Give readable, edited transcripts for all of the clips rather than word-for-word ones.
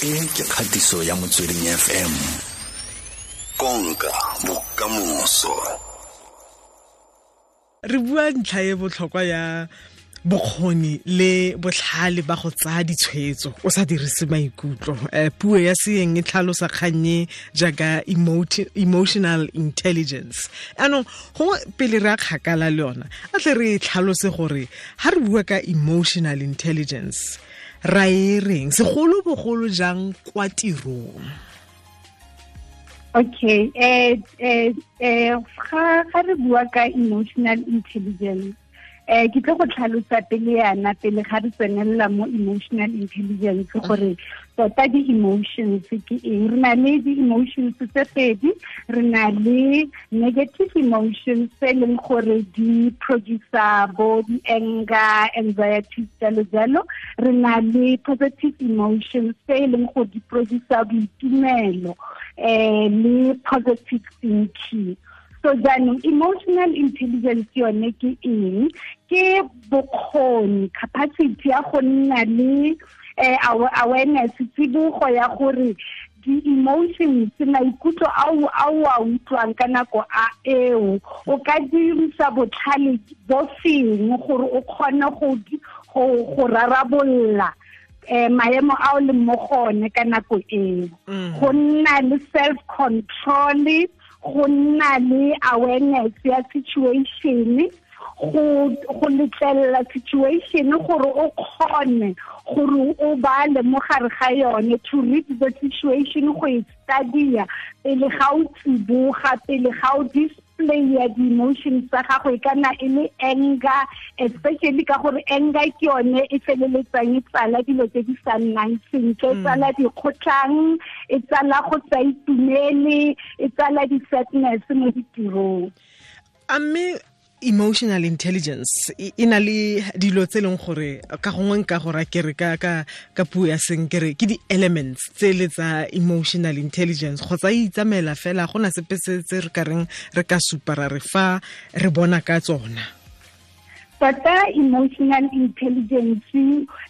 E ke kgatiso ya Motsweding FM. Konka bokamoso. Re bua ntlha e botlhokwa ya bokgoni le botlhale ba go tsaya ditshwetso o sa dirise maikutlo. Puo ya seeng e tlhalosa kgannye jaaka emotional intelligence. Anong gongwe pele re a kgakala le yona, a tle re e tlhalose gore ha re bua ka emotional intelligence ra e reng, segolobogolo jang kwa tirong? Okay, ga re bua ka emotional intelligence, ke tlo go tlhalosa pele yana, pele ga re tsenelela mo emotional intelligence, gore tota di-emotions ke eng. Re na le di-emotions tse pedi, re na le negative emotions tse e leng gore di producer bo di-anger, anxiety, jalo jalo. Re na le positive emotions tse e leng gore di producer boitumelo, le positive thinking. So jaanong emotional intelligence yone ke eng? Ke bokgoni, capacity ya go nna le awareness, tsibogo ya gore di-emotions, maikutlo ao a o a utlwang ka nako a eo, o ka dirisa botlhale bo feng gore o kgone go rarabolola maemo ao leng mo gone ka nako eo. Go nna le self control, go nna le awareness ya situation, go letlelela situation gore o kgone gore o bale mo gare ga yone, to read the situation, go e study-a pele ga o tsiboga, pele ga o display ya di-emotions tsa gago, e kana e le anger, especially ka gore anger ke yone e feleletsang e tsala dilo tse di sa nnang sentle, e tsala dikgotlhang, e tsala go sa itumele, e tsala di-sadness mo ditirong. A mme emotional intelligence e na le dilo tse leng gore ka gongwe nka go ra kere ka puo ya seng kere ke di-elements tse le tsa emotional intelligence, kgotsa e itsamela fela, gona sepe se tse re ka reng re ka supa ra re fa re bona ka tsona? Tota emotional intelligence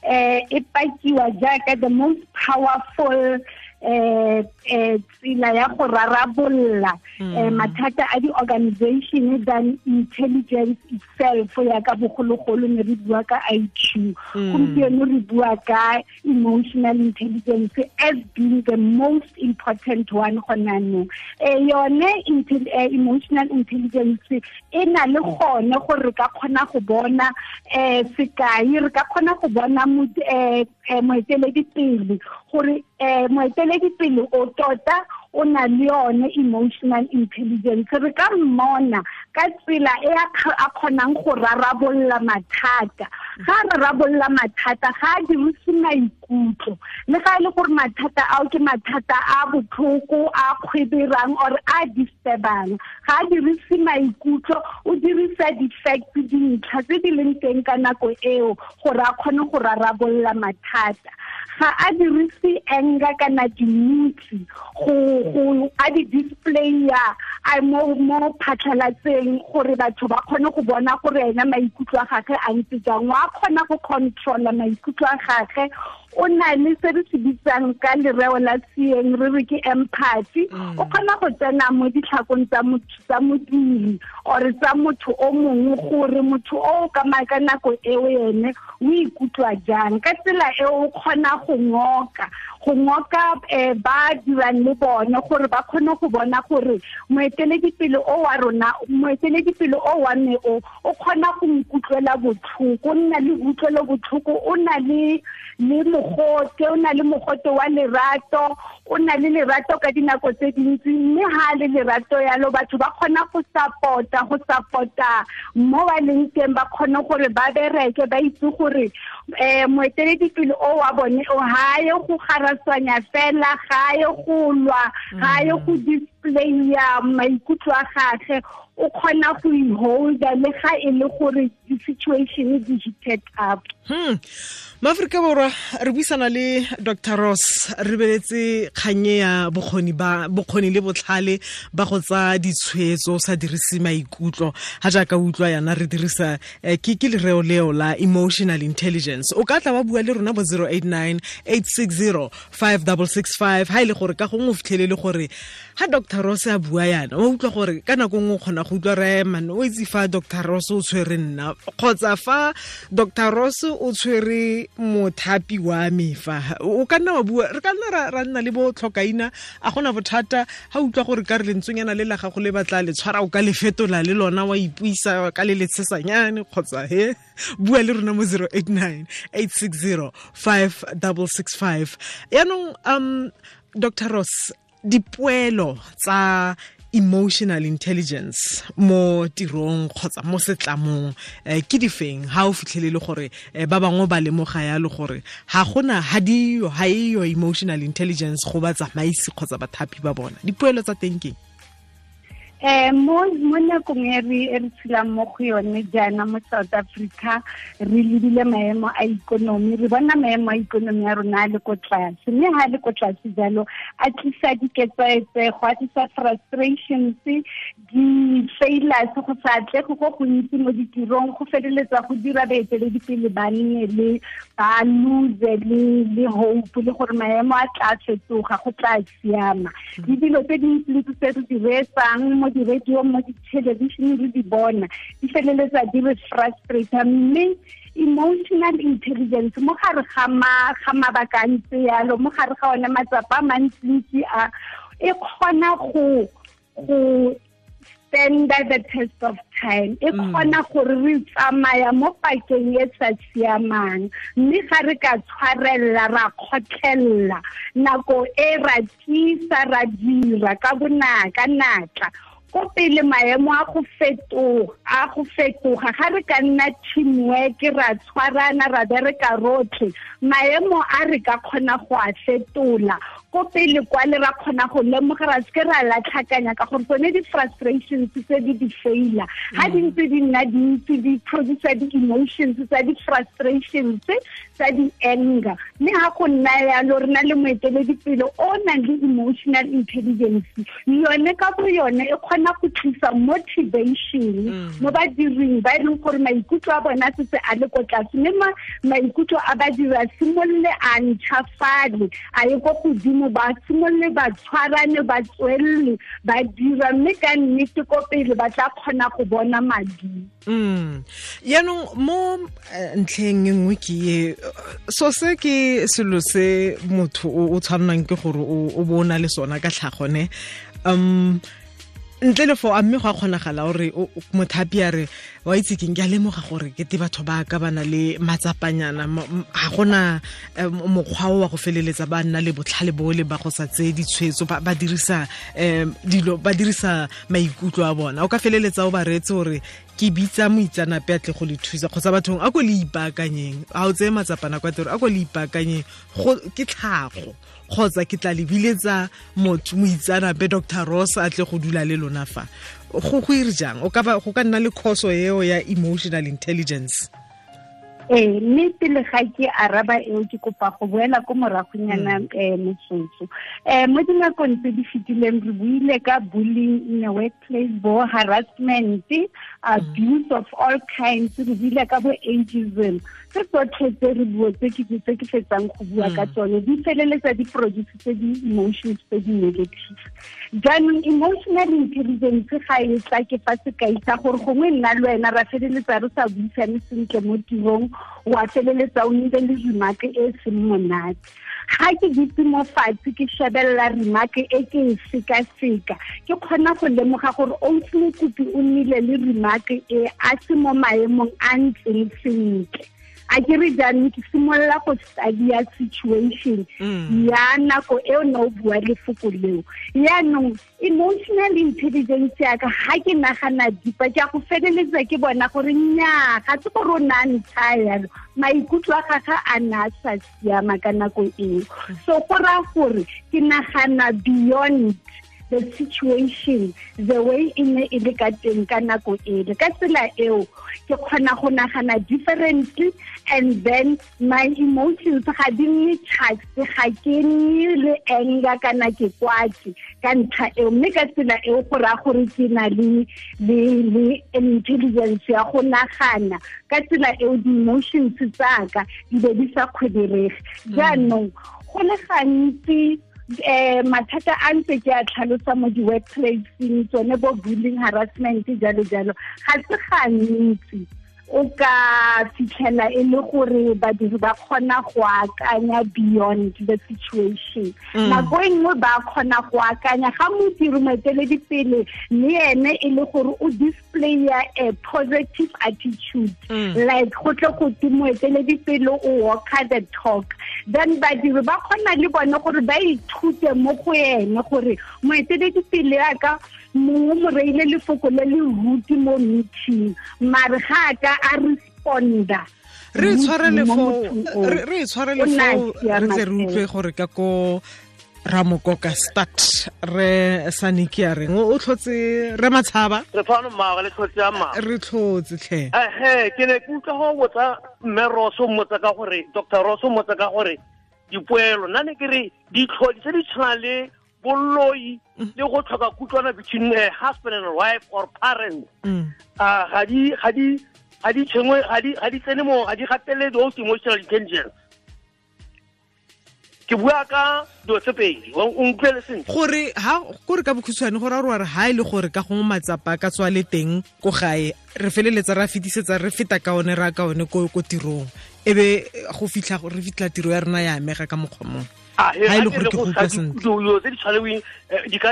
e pakiwa jaaka the most powerful tsela ya go rarabolola mathata a di-organization than intelligence itself. Ya ka bogologolo ne re bua ka IQ, gompieno re bua ka emotional intelligence as being the most important one gona nou. Yone emotional intelligence e na le gone gore re ka kgona go bona, sekai, re ka kgona go bona moeteledipele, gore moeteledipele o tota o na le yone emotional intelligence. Re ka mmona ka tsela e a kgonang go rarabolola mathata. Ga a rarabolola mathata, ga a dirise maikutlo, le ga e le gore mathata ao ke mathata a botlhoko, a kgweberang or a disturbang, ga a dirise maikutlo, o dirisa di-facts, dintlha tse di leng teng ka nako eo gore a kgone go rarabolola mathata. Ga a dirise anger kana dimutsi go a di display-a a mo phatlhalatseng gore batho ba kgone go bona gore ena maikutlo a gagwe a ntse jang. Wa kgona go controla maikutlo a gagwe, o na le se re se bitsang ka lereo la seeng re re ke empathy. O kgona go tsena mo ditlhakong tsa motho, tsa modiri or tsa motho o mongwe, gore motho o ka nako eo ene o ikutlwa jang. Ka tsela eo o kgona go ngoka ba dirang le bone gore ba kgone go bona gore moeteledipele o wa rona, moeteledipele o wa me o kgona go nkutlwela botlhoko, o nna le utlwelo botlhoko, o na le mogote, o na le mogote wa lerato, o na le lerato ka dinako tse dintsi, mme ha le lerato yalo batho ba kgona go support-a mo ba leng teng, ba kgone gore ba bereke, ba itse gore moeteledipele o wa bone o ha ye go garaswanya fela, ga ye go lwa, ga ye go display-a maikutlo a gagwe, o kgona go i-holda le ga e le gore di-situation di heated up. Maaforika Borwa, re buisana le Dr. Ross, re beletse kganye ya bokgoni le botlhale ba go tsa ditshwetso sa dirise maikutlo ha jaaka utlwa yana re dirisa ke lereo leo la emotional intelligence. O ka tla wa bua le rona bo 089 860 5665 ha ile gore ka gongwe o fitlhelele gore ha Dr. Ross a bua yana o utlwa gore ka nako nngwe o kgona go utlwa re man o itse fa Dr. Ross o tshwere nna kgotsa fa Dr. Ross o tshwere mothapi wa me fa o ka nna wa bua re ka nna ra nna le bo tlhokaina a gona bothata ha utlwa gore ka re lentswenyana le la gago le batla le tshwara o ka le fetola le lona wa ipuisa ka le letshesanyane kgotsa he bua le rona mo 089 860 5665. Yaanong Dr. Ross, dipoelo tsa emotional intelligence mo tirong kgotsa mo setlamong ke difeng ha o fitlhelele gore ba bangwe ba lemoga yalo gore ha gona ha diyo ha eyo emotional intelligence go ba tsamaisi kgotsa bathapi ba bona, dipoelo tsa teng ke Mo nakong e re tshelang mo go yone jaana mo South Africa, re lebile maemo a ikonomi, re bona maemo a ikonomi ya rona a le ko tlase, mme ha le ko tlase jalo a tlisa diketsaetsego, a tlisa frustrations, di-failures, go sa atlege go gontsi mo ditirong, go feleletsa go dira baeteledipele ba nne le ba lose le hope le gore maemo a tla fetoga, go tla siama. Le dilo tse dintsi tse re di reetsang mo di-radio, mo di-television re di bona, di feleletsa di re frustrate. Mme emotional intelligence mo gare ga mabaka a ntse yalo, mo gare ga one matsapa a mantsintsi a, e kgona go stand the test of time, e kgona gore re tsamaya mo pakeng e sa siamang, mme ga re ka tshwarella ra kgotlhella nako e ra tiisa ra dira ka bonaka natla ko pele maemo a go fetoga ga re ka nna teamwork ra tshwarana ra bereka rotlhe, maemo a re ka kgona go a fetola ko pele kwa le ra kgona go lemoga ra seke ra latlhakanya ka gore tsone di-frustrations tse di di-failure ga di ntse di nna dintsi di producer di-emotions tsa di-frustrations tsa di-anger. Mme ga go nna yalo re na le moeteledipele o nang le emotional intelligence, yone ka bo yone e kgona go tlisa motivation mo badiring ba e leng gore maikutlo a bona setse a le ko tlase, mme maikutlo a badiri a simolole a ntšhafale a ye ko godimo, ba simolole ba tshwarane ba tswelele ba dira, mme ka nnete ko pele ba tla kgona go bona madi. Yaanong mo ntlheng e nngwe ke e so se ke selo se motho o tshwannang ke gore o bo o na le sona ka tlhagone, ntle le fo a mme go a kgonagala gore mothapi a re wa itse keng ke a lemoga gore ke te batho ba ka ba na le matsapanyana, ga gona mokgwa o wa go feleletsa ba nna le botlhale bole ba go sa tseye ditshwetso, ba dirisa dilo, ba dirisa maikutlo a bona. O ka feleletsa o ba reetse gore ke bitsa moitsanape a tle go le thusa kgotsa bathong a ko le ipaakanyeng, ga o tseye matsapana kwa tiro, a ko le ipaakanyeng ke tlhago kgotsa ke tla lebiletsa motho moitsanape Dr. Ross a tle go dula le lona fa. Go ire jang? O ka go ka nna le khoso eo ya emotional intelligence. Mme pele ga ke araba eo ke kopa go boela ko moragonyana motsotso. Mo dinakong tse di fetileng re buile ka bullying in the workplace, bo harassment, abuse of all kinds, re buile ka bo ageism. Tse tsotlhe tse re bua tse ke fetsang go bua ka tsone di feleletsa di produce tse di-emotions tse di negative. Jaanong emotional intelligence ga e tla ke fa sekai sa gore gongwe nna le wena ra feleletsa re sa buisane sentle mo tirong, wa feleletsa o nnile le remark e seng monate. Ga ke dutse mo fatshe ke shebelela remark e ke e sekaseka, ke kgona go lemoga gore Ausi Mokopi o nnile le remark e a se mo maemong a ntseng sentle. A ke re jaanong ke simolola go study-a situation ya nako eo ne o bua lefoko leo. Yaanong emotional intelligence ya ka ga ke nagana deeper, ke a go feleletsa ke bona gore nnyaa ga se gore o ne a ntsha yalo, maikutlo a gagwe a ne a sa siama ka nako eo. So go raya gore ke nagana beyond the situation the way e ne e le ka teng ka nako ele. Ka tsela eo ke kgona go nagana differently, and then my emotions ga di nne charged, ga ke nne le anger kana ke kwatse ka ntlha eo. Mme ka tsela eo go raya gore ke na le intelligence ya go nagana ka tsela eo di-emotions tsaka di be di sa kgwederege. Jaanong go le gantsi mathata a ntse ke a tlhalosa mo di-workplaceng, tsone bo bullying, harassment, jalo jalo, ga se gantsi o ka fitlhela e le gore badiri ba kgona go akanya beyond the situation. Nako e nngwe ba kgona go akanya ga modiri moeteledipele le ene e le gore o displaya a positive attitude, like go tle go te moeteledipele o walker the talk, then badiri ba kgona le bone gore ba ithute mo go ene gore moeteledipele ya ka mongwe mo reile lefoko le le ruti mo meeting, mare ga a ka a responda. Re tshwarele fo re tle re utlwe gore ka ko Ramokoka start re Saniki a reng o tlhotse re Matshaba re fano mma le tlhotse ya mma re tlhotse tlhe. Ke ne ke utlwa go botsa mme Roso mmotsa ka gore Dr. Roso mmotsa ka gore dipoelo nna ne ke re ditlhodi tse di tshwana le boloi le go tlhoka kutlwana between husband and wife or parents, ga di tsene mo, ga di gatelele those emotional intelligence. Ke bua ka dilo tse pedi, o nkutlwele sentle gore ha kore ka bokhutshwane gore a re ha e le gore ka gongwe matsapa ka tswa le teng ko gae re feleletsa ra fetisetsa re feta ka one ra ka one ko tirong, ebe go fitlha re fitlha tiro ya rena ya amega ka mokgwa mongwe. Ha e le gore ke go utlwa sentle dilo tse di tshwaneweng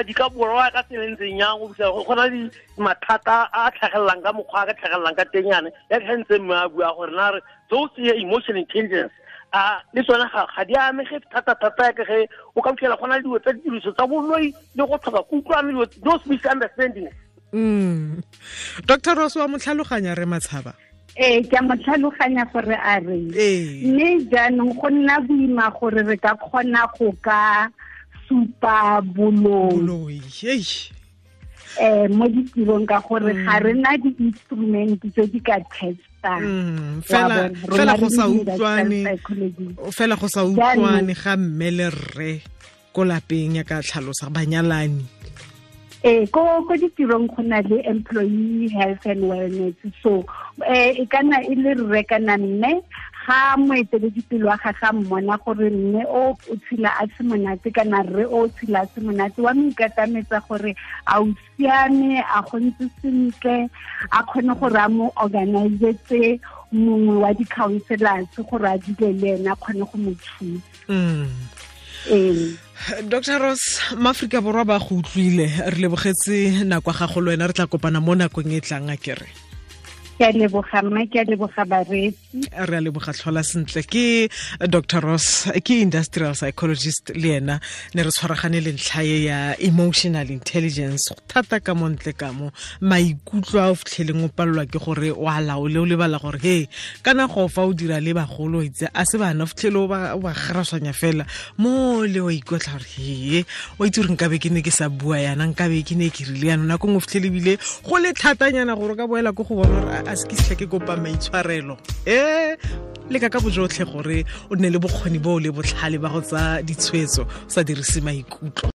di ka borwa ka tsela e ntseng yang go fitlha go na le mathata a tlhagelelang ka mokgwa a ka tlhagelelang ka teng yana ya ke ntse mme a bua gore na re those emotional intelligence a le tsone ga di amege thata-thata ya ke ge o ka fitlhela go na le dilo tsa ditiriso tsa boloi le go tlhoka kutlwano, dilo those misunderstandings. Dr. Ross wa mo tlhaloganya re Matshaba? Ee, ke a mo tlhaloganya gore a reng, mme jaanong go nna boima gore re ka kgona go ka supa boloi mo ditirong ka gore ga re na di-instrument tse di ka testang. Fela go sa utlwane, fela go sa utlwane ga mme le rre ko lapeng ya ka tlhalosa banyalani. Ko ditirong go na le employee health and wellness, so e kana e le rre kana mme ga moeteledipele wa gagwe a mmona gore mme o tshela a se monate kana rre o tshela a se monate, wa mo ikatametsa gore a o siame, a go ntse sentle, a kgone gore a mo organizetse mongwe wa di-counselors gore a dule le ene a kgone go mo thusa. Dr. Ross, Maaforika Borwa ba go utlwile, re lebogetse nako ya gago le wena, re tla kopana mo nakong e tlang a kere. Ke a leboga mme, ke a leboga bareetsi. Re a leboga, tlhola sentle. Ke Dr. Ross, ke industrial psychologist le ena ne re tshwaragane le ntlha e ya emotional intelligence thata ka montle ka mo maikutlo a o fitlheleng o palelwa ke gore o a laole, o lebala gore he kana go fa o dira le bagolo itse a se bana, o fitlhele o ba garaswanya fela mo le o ikotla gore he o itse gore nkabe ke ne ke sa bua yana, nkabe ke ne ke rile yana. Nako nngwe o fitlhele ebile go le thatanyana gore o ka boela ko go bona gore a se ke setlha ke kopa maitshwarelo. Leka ka bojotlhe gore o nne le bokgoni bo le botlhale ba go tsaya ditshwetso o sa dirise maikutlo.